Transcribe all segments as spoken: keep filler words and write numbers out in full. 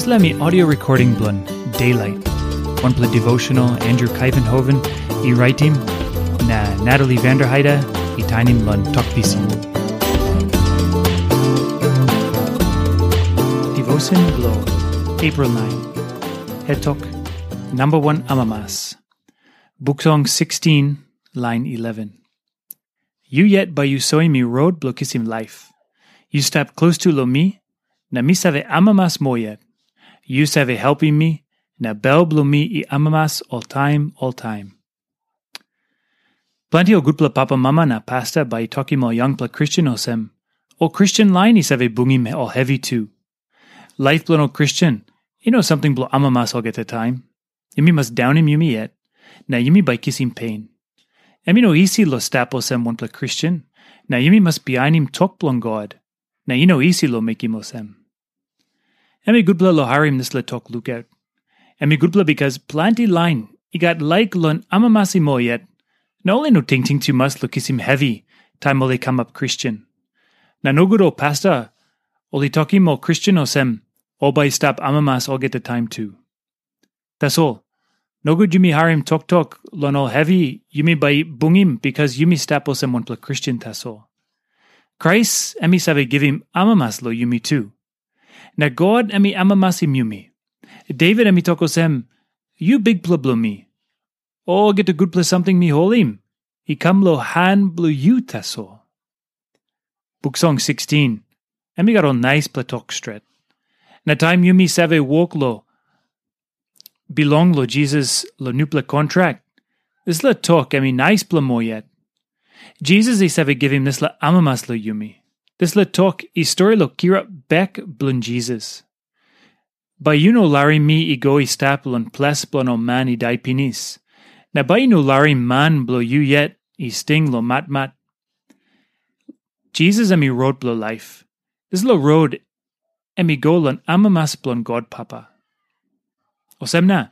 Dispela mi audio recording bilong Daylight. Wanpela devotional Andrew Kaivenhoven i raitim, na Natalie Vanderheide i tainim long Tok Pisin. Devotion bilong April nine. Hetok, number one amamas. Buk Song sixteen, line eleven. Yu yet bai yu soim mi rot bilong kisim laip. Yu stap klostu long mi, na mi save amamas moa yet. Yu save helpim mi, na bel bilong mi i amamas oltaim oltaim. Planti ol gutpela papa mama na pasta bai i tokim ol yangpela Kristen olsem, ol Kristen lain i save bungim ol hevi tu. Laip bilong ol Kristen i no samting bilong amamas olgeta taim. Yumi mas daunim yumi yet, na yumi bai kisim pen. Em i no isi long stap olsem wanpela Kristen, na yumi mas bihainim tok bilong God, na i no isi long mekim olsem. Em i gutpela long harim dispela tok lukaut. Em i gutpela bikas planti lain i gat laik long amamasim ol yet, na ol i no tingting tumas long kisim hevi taim ol i kamap Kristen. Na nogut ol pasta ol i tokim ol Kristen olsem, ol bai i stap amamas olgeta taim tu. Tasol, nogut yumi harim toktok long ol hevi yumi bai bungim bikas yumi stap olsem wanpela Kristen tasol. Krais em i save givim amamas long yumi tu. Na God em i amamasim yumi. Devit em i tok olsem, "Yu bikpela bilong mi. Olgeta gutpela samting mi holim i kam long han bilong yu tasol." Buk Song sixteen, em i gat ol naispela tok stret. Na taim yumi save wok long bilong long Jisas long nupela kontrak, dispela tok em i naispela moa yet. Jisas i save givim dispela amamas long yumi. Dispela tok i stori long kirap bek bilong Jisas. Bai yu no larim mi i go i stap long ples bilong ol man i dai pinis, na bai yu no larim man bilong yu yet i sting long matmat. Jisas em i rot bilong laip. Dispela rot em i go long amamas bilong God Papa. Olsem na,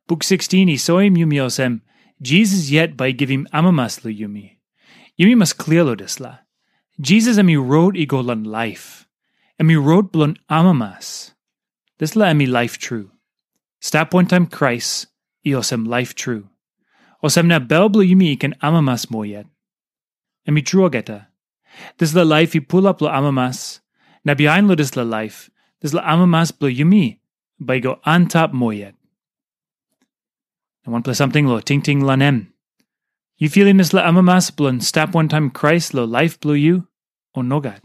Buk sixteen i soim yumi olsem, Jisas yet bai i givim amamas long yumi. Yumi mas klia long dispela. Jisas em i rot i go long laip. Em i rot bilong amamas. Dispela em i laip tru. Stap wantaim Krais i olsem laip tru. Olsem na bel bilong yumi i ken amamas moa yet. Em i tru olgeta. Dispela laip i pulap long amamas, na bihain long dispela laip, dispela amamas bilong yumi bai i go antap moa yet. Na wanpela samting long tingting long em. Yu filim dispela amamas bilong stap wantaim Krais long laip bilong yu, o nogat?